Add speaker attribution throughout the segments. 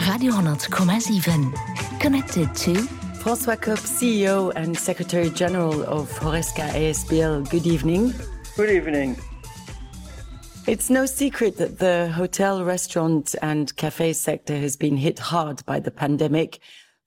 Speaker 1: Radio 10,7. Connected to
Speaker 2: François Kopp, CEO and Secretary General of Horesca ASBL. Good evening.
Speaker 3: Good evening.
Speaker 2: It's no secret that the hotel, restaurant and cafe sector has been hit hard by the pandemic.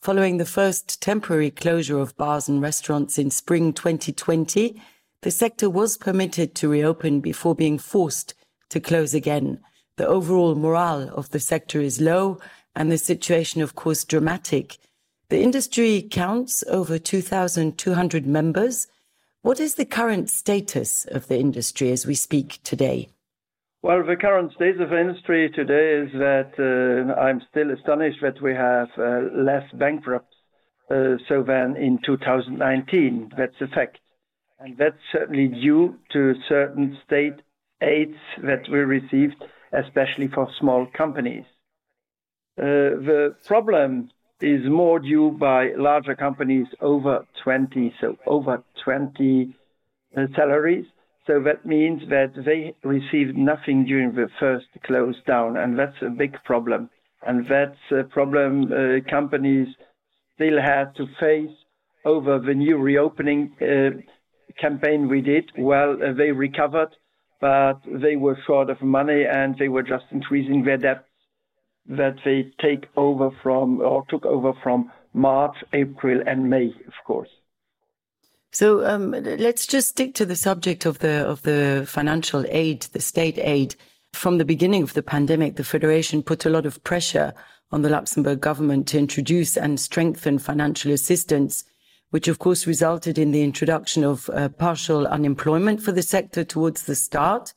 Speaker 2: Following the first temporary closure of bars and restaurants in spring 2020, the sector was permitted to reopen before being forced to close again. The overall morale of the sector is low and the situation, of course, dramatic. The industry counts over 2,200 members. What is the current status of the industry as we speak today?
Speaker 3: Well, the current state of the industry today is that I'm still astonished that we have less bankrupts than in 2019. That's a fact. And that's certainly due to certain state aids that we received, especially for small companies. The problem is more due by larger companies over 20 salaries. So that means that they received nothing during the first close down, and that's a big problem. And that's a problem companies still have to face over the new reopening campaign we did. Well, they recovered, but they were short of money and they were just increasing their debts that they took over from March, April and May, of course.
Speaker 2: So let's just stick to the subject of the financial aid, the state aid. From the beginning of the pandemic, the Federation put a lot of pressure on the Luxembourg government to introduce and strengthen financial assistance, which of course resulted in the introduction of partial unemployment for the sector towards the start.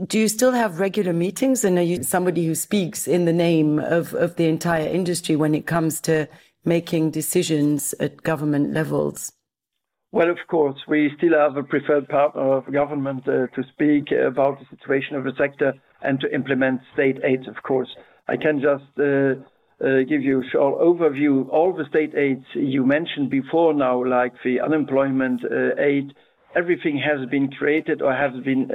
Speaker 2: Do you still have regular meetings, and are you somebody who speaks in the name of the entire industry when it comes to making decisions at government levels?
Speaker 3: Well, of course, we still have a preferred partner of government to speak about the situation of the sector and to implement state aids, of course. I can just give you a short overview. All the state aids you mentioned before now, like the unemployment aid, everything has been created or has been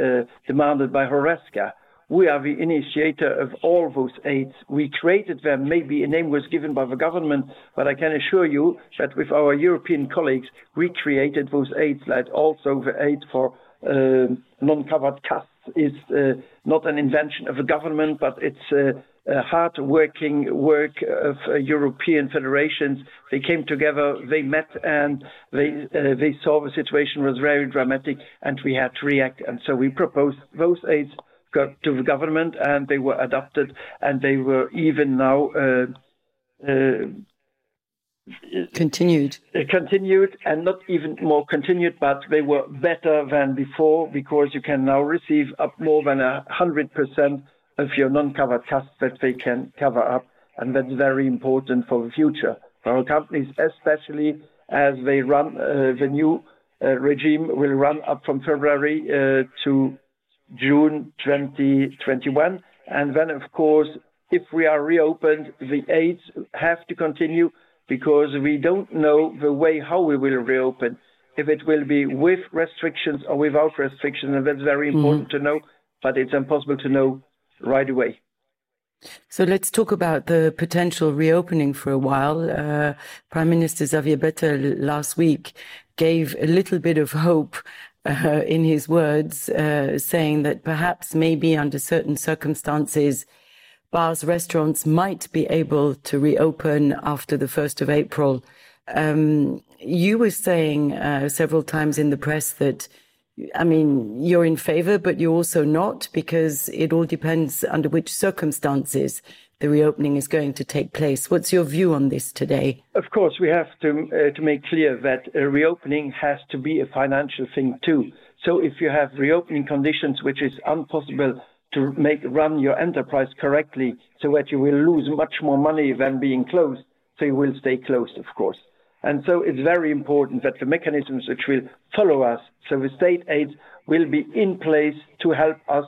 Speaker 3: demanded by Horesca. We are the initiator of all those aids. We created them. Maybe a name was given by the government, but I can assure you that with our European colleagues, we created those aids. Like also the aid for non-covered costs is not an invention of the government, but it's hard-working work of European federations. They came together, they met, and they saw the situation was very dramatic, and we had to react. And so we proposed those aids to the government, and they were adopted, and they were even now
Speaker 2: continued, and not even more continued, but they were better than before, because you can now receive up more than 100% of your non-covered costs that they can cover up, and that's very important for the future for our companies, especially as they run the new regime will run up from February to June 2021, and then of course if we are reopened, the aids have to continue, because we don't know the way how we will reopen, if it will be with restrictions or without restrictions, and that's very important to know, but it's impossible to know right away. So let's talk about the potential reopening for a while. Prime Minister Xavier Bettel last week gave a little bit of hope in his words, saying that perhaps maybe under certain circumstances, bars, restaurants might be able to reopen after the 1st of April. You were saying several times in the press that, I mean, you're in favor, but you're also not, because it all depends under which circumstances the reopening is going to take place. What's your view on this today? Of course, we have to make clear that a reopening has to be a financial thing too. So if you have reopening conditions which is impossible to run your enterprise correctly, so that you will lose much more money than being closed, so you will stay closed, of course. And so it's very important that the mechanisms which will follow us, so the state aids will be in place to help us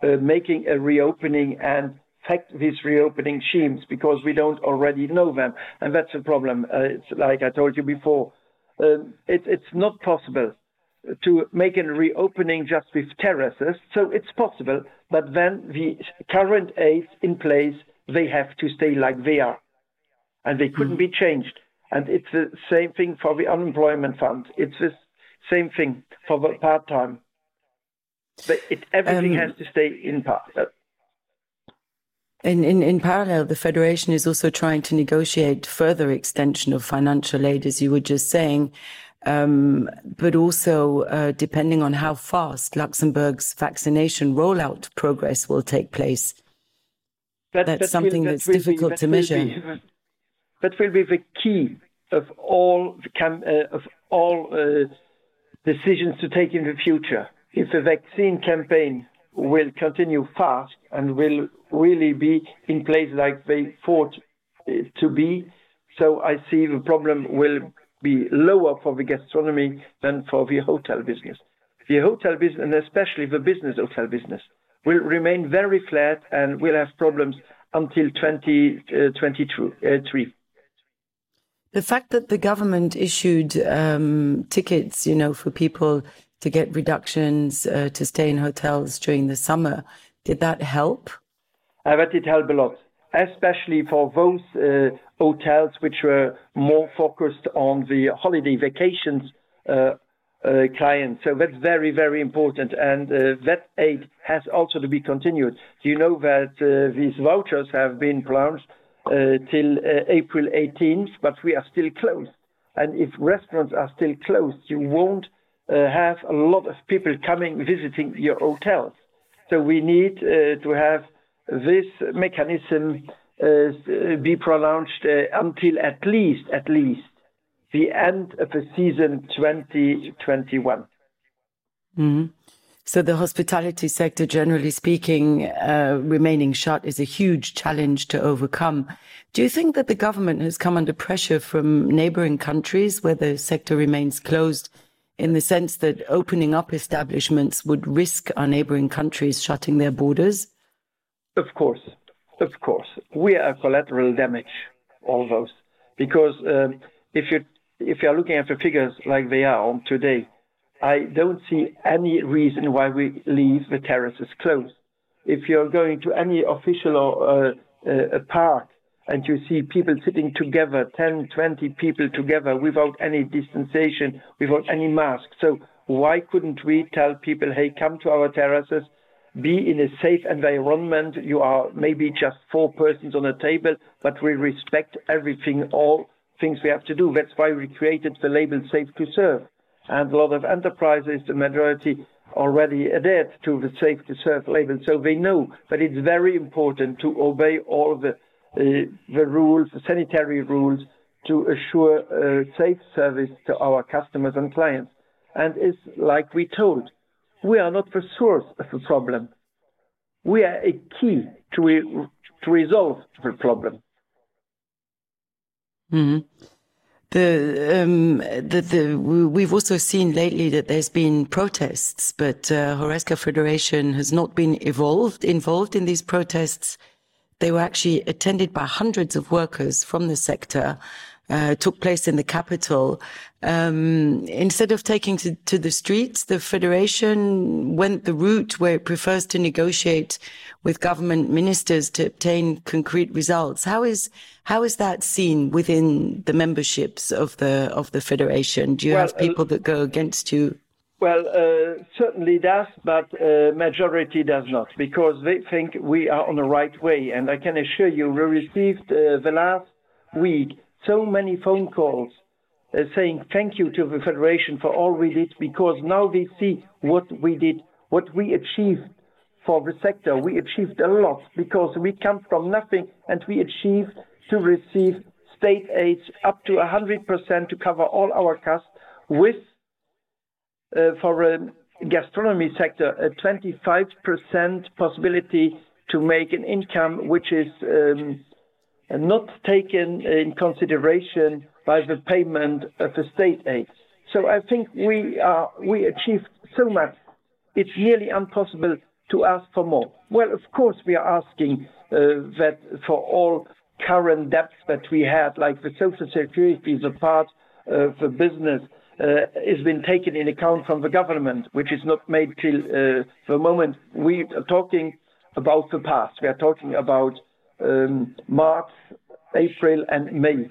Speaker 2: making a reopening and affect these reopening schemes, because we don't already know them. And that's a problem. It's like I told you before, it's not possible to make a reopening just with terraces. So it's possible, but then the current aids in place they have to stay like they are. And they couldn't be changed. And it's the same thing for the unemployment fund. It's the same thing for the part-time. Everything has to stay in part.
Speaker 4: In parallel, the Federation is also trying to negotiate further extension of financial aid, as you were just saying, but also depending on how fast Luxembourg's vaccination rollout progress will take place. That's something that's difficult to measure.
Speaker 2: That will be the key of all decisions to take in the future. If the vaccine campaign will continue fast and will really be in place like they thought it to be, so I see the problem will be lower for the gastronomy than for the hotel business. The hotel business, and especially the business hotel business, will remain very flat and will have problems until 2023.
Speaker 4: The fact that the government issued tickets, for people to get reductions to stay in hotels during the summer, did that help?
Speaker 2: That did help a lot, especially for those hotels which were more focused on the holiday vacations clients. So that's very, very important. And that aid has also to be continued. Do you know that these vouchers have been pronounced till April 18th, but we are still closed. And if restaurants are still closed, you won't have a lot of people coming visiting your hotels. So we need to have this mechanism be pronounced until at least the end of the season 2021.
Speaker 4: Mm-hmm. So the hospitality sector, generally speaking, remaining shut is a huge challenge to overcome. Do you think that the government has come under pressure from neighboring countries where the sector remains closed, in the sense that opening up establishments would risk our neighboring countries shutting their borders?
Speaker 2: Of course. We are collateral damage, all those. Because if you're looking at the figures like they are on today, I don't see any reason why we leave the terraces closed. If you're going to any official or a park and you see people sitting together, 10, 20 people together without any distanciation, without any mask. So why couldn't we tell people, hey, come to our terraces, be in a safe environment. You are maybe just 4 persons on a table, but we respect everything, all things we have to do. That's why we created the label Safe to Serve. And a lot of enterprises, the majority, already adhered to the Safe to Serve label. So they know that it's very important to obey all the rules, the sanitary rules, to assure a safe service to our customers and clients. And it's like we told, we are not the source of the problem. We are a key to resolve the problem.
Speaker 4: Mm-hmm. We've also seen lately that there's been protests, but Horeca Federation has not been involved in these protests. They were actually attended by hundreds of workers from the sector, took place in the capital. Instead of taking to the streets, the Federation went the route where it prefers to negotiate with government ministers to obtain concrete results. How is that seen within the memberships of the Federation? Do you have people that go against you?
Speaker 2: Well, certainly does, but majority does not, because they think we are on the right way. And I can assure you, we received the last week so many phone calls saying thank you to the Federation for all we did, because now they see what we did, what we achieved for the sector. We achieved a lot because we come from nothing, and we achieved to receive state aids up to 100% to cover all our costs, with for a gastronomy sector a 25% possibility to make an income which is not taken in consideration by the payment of the state aid. So I think we achieved so much. It's nearly impossible to ask for more. Well, of course, we are asking that for all current debts that we had, like the Social Security, the part of the business, has been taken in account from the government, which is not made till the moment. We are talking about the past. We are talking about March, April, and May,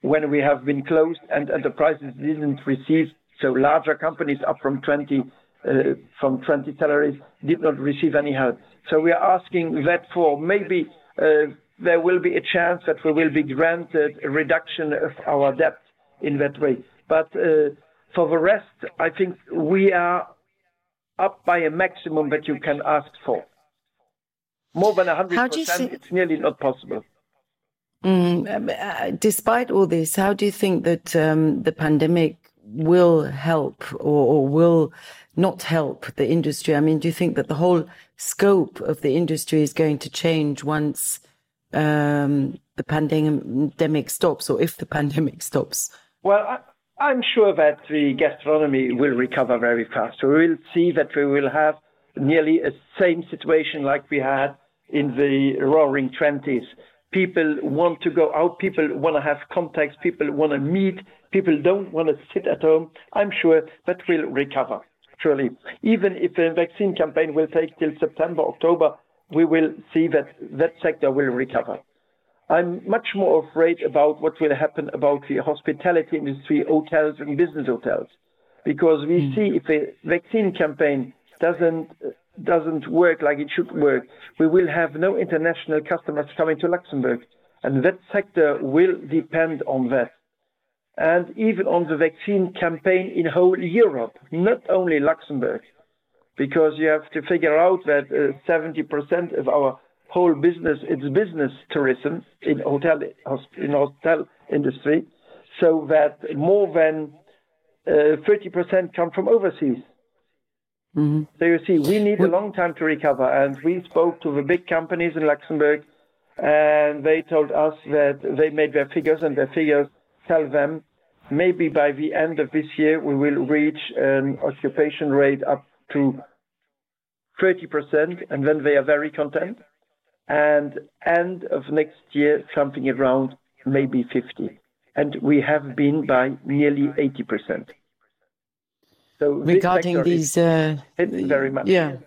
Speaker 2: when we have been closed and enterprises didn't receive, so larger companies up from 20 salaries did not receive any help. So we are asking that for maybe there will be a chance that we will be granted a reduction of our debt in that way. But for the rest, I think we are up by a maximum that you can ask for. More than 100%, it's nearly not possible.
Speaker 4: Despite all this, how do you think that the pandemic will help or will not help the industry? I mean, do you think that the whole scope of the industry is going to change once the pandemic stops, or if the pandemic stops?
Speaker 2: Well, I'm sure that the gastronomy will recover very fast. We will see that we will have nearly a same situation like we had in the Roaring '20s. People want to go out, people want to have contacts, people want to meet, people don't want to sit at home. I'm sure that will recover, surely. Even if the vaccine campaign will take till September, October, we will see that that sector will recover. I'm much more afraid about what will happen about the hospitality industry, hotels and business hotels, because we see if the vaccine campaign doesn't work like it should work, we will have no international customers coming to Luxembourg, and that sector will depend on that. And even on the vaccine campaign in whole Europe, not only Luxembourg, because you have to figure out that 70% of our whole business, it's business tourism in hotel industry, so that more than 30% come from overseas. Mm-hmm. So you see, we need a long time to recover, and we spoke to the big companies in Luxembourg, and they told us that they made their figures, and their figures tell them maybe by the end of this year we will reach an occupation rate up to 30%, and then they are very content. And end of next year, something around maybe 50%. And we have been by nearly 80%. So
Speaker 4: regarding these,
Speaker 2: very much.
Speaker 4: Yeah,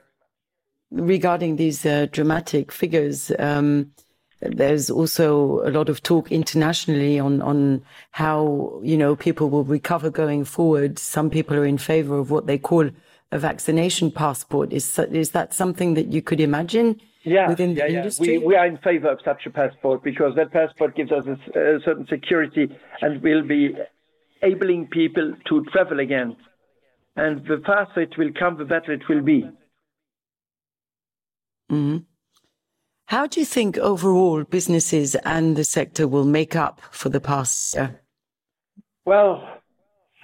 Speaker 4: regarding these dramatic figures, there's also a lot of talk internationally on how, you know, people will recover going forward. Some people are in favor of what they call a vaccination passport. Is that something that you could imagine? Within the industry?
Speaker 2: We are in favor of such a passport, because that passport gives us a certain security and will be enabling people to travel again. And the faster it will come, the better it will be.
Speaker 4: Mm-hmm. How do you think overall businesses and the sector will make up for the past year?
Speaker 2: Well,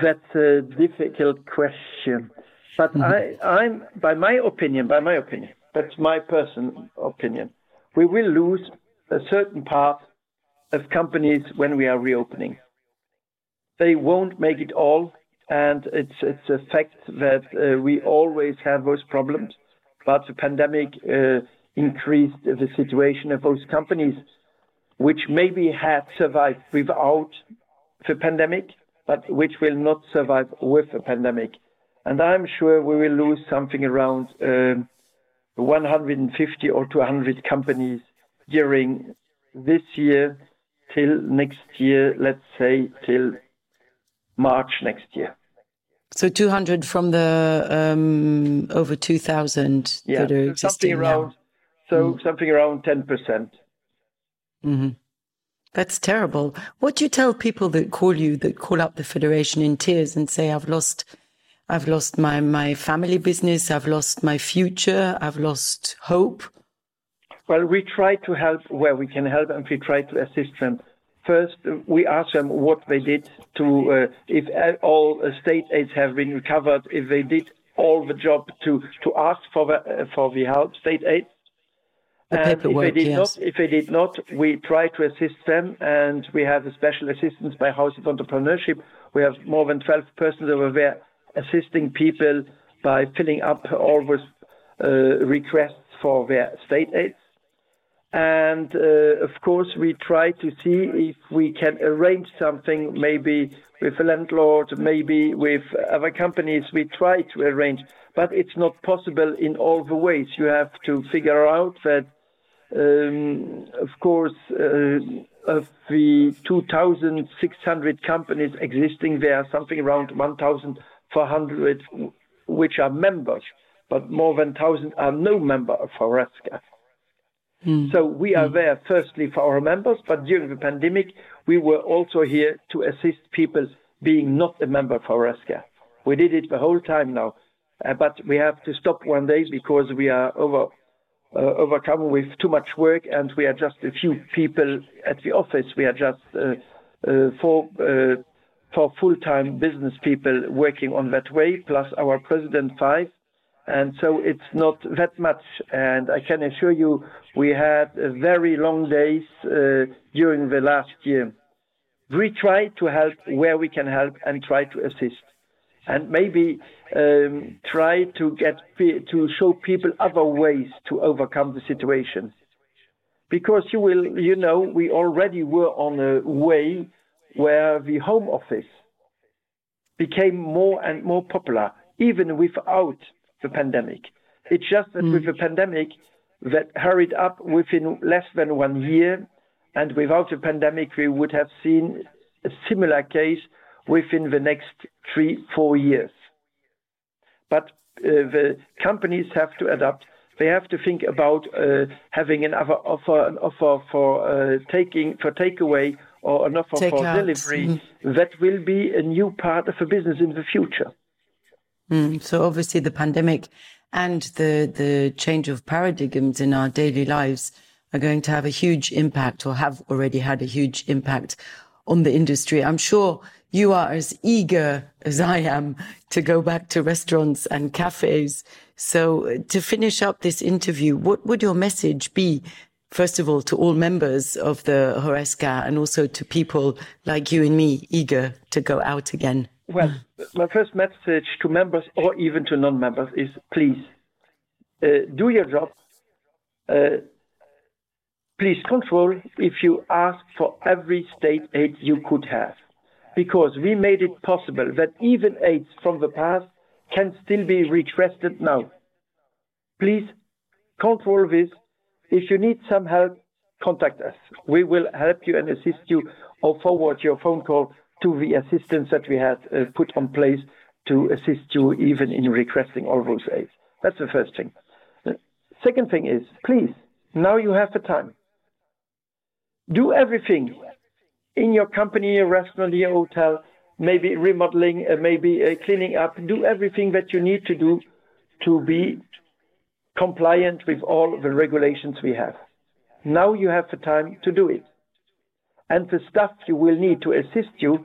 Speaker 2: that's a difficult question. But I'm by my opinion, that's my personal opinion, we will lose a certain part of companies when we are reopening. They won't make it all, and it's a fact that we always have those problems. But the pandemic increased the situation of those companies, which maybe had survived without the pandemic, but which will not survive with the pandemic. And I'm sure we will lose something around 150 or 200 companies during this year till next year, let's say till March next year.
Speaker 4: So 200 from the over 2,000 that are existing now.
Speaker 2: Something around 10%.
Speaker 4: Mm-hmm. That's terrible. What do you tell people that call up the Federation in tears and say, I've lost my family business, I've lost my future, I've lost hope?
Speaker 2: Well, we try to help where we can help, and we try to assist them. First, we ask them what they did to, if all state aids have been recovered, if they did all the job to ask for the help, state aid. And if they did not, we try to assist them, and we have a special assistance by House of Entrepreneurship. We have more than 12 persons over there assisting people by filling up all those requests for their state aids. And of course, we try to see if we can arrange something, maybe with a landlord, maybe with other companies. We try to arrange, but it's not possible in all the ways. You have to figure out that Of course, of the 2,600 companies existing, there are something around 1,400 which are members, but more than 1,000 are no member of HORESCA. So we are there firstly for our members, but during the pandemic, we were also here to assist people being not a member of HORESCA. We did it the whole time now, but we have to stop one day because we are overcome with too much work, and we are just a few people at the office. We are just four full-time business people working on that way, plus our president 5. And so it's not that much. And I can assure you, we had very long days during the last year. We try to help where we can help and try to assist. And maybe try to show people other ways to overcome the situation. Because we already were on a way where the home office became more and more popular, even without the pandemic. It's just that with the pandemic, that hurried up within less than 1 year, and without the pandemic, we would have seen a similar case within the next 3-4 years. But the companies have to adapt. They have to think about having an offer for takeaway or an offer for delivery. That will be a new part of the business in the future.
Speaker 4: So obviously the pandemic and the change of paradigms in our daily lives are going to have a huge impact, or have already had a huge impact on the industry. I'm sure you are as eager as I am to go back to restaurants and cafes. So to finish up this interview, what would your message be, first of all, to all members of the HORESCA and also to people like you and me eager to go out again?
Speaker 2: Well, my first message to members or even to non-members is please do your job. Please control if you ask for every state aid you could have, because we made it possible that even aids from the past can still be requested now. Please control this. If you need some help, contact us. We will help you and assist you, or forward your phone call to the assistance that we had put on place to assist you even in requesting all those aids. That's the first thing. The second thing is, please, now you have the time. Do everything in your company, your restaurant, your hotel, maybe remodeling, maybe cleaning up. Do everything that you need to do to be compliant with all the regulations we have. Now you have the time to do it. And the stuff you will need to assist you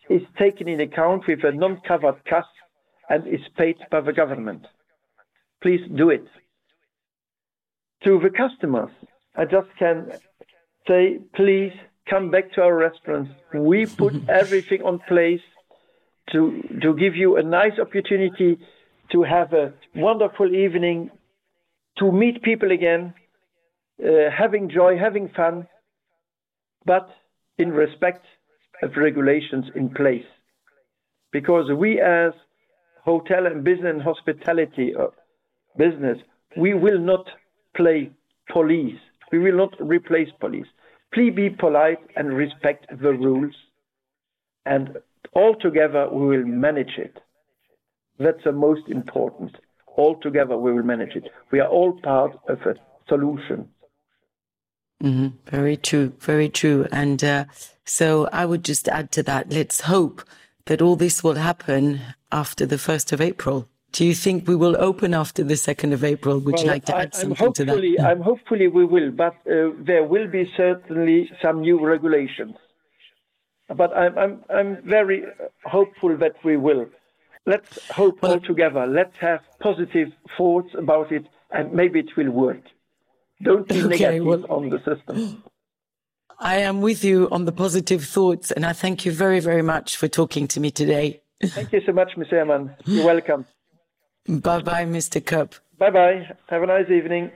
Speaker 2: is taken in account with a non-covered cost and is paid by the government. Please do it. To the customers, I just can say, please come back to our restaurants. We put everything on place to give you a nice opportunity to have a wonderful evening, to meet people again, having joy, having fun, but in respect of regulations in place. Because we as hotel and business and hospitality business, we will not play police. We will not replace police. Please be polite and respect the rules, and all together we will manage it. That's the most important. All together we will manage it. We are all part of a solution.
Speaker 4: Very true, very true. And so I would just add to that, let's hope that all this will happen after the 1st of April. Do you think we will open after the 2nd of April? Would you like to add something to that?
Speaker 2: Hopefully we will, but there will be certainly some new regulations. But I'm very hopeful that we will. Let's hope all together. Let's have positive thoughts about it, and maybe it will work. Don't be negative on the system.
Speaker 4: I am with you on the positive thoughts, and I thank you very, very much for talking to me today.
Speaker 2: Thank you so much, Mr. Herman. You're welcome.
Speaker 4: Bye-bye, Mr. Kopp.
Speaker 2: Bye-bye. Have a nice evening.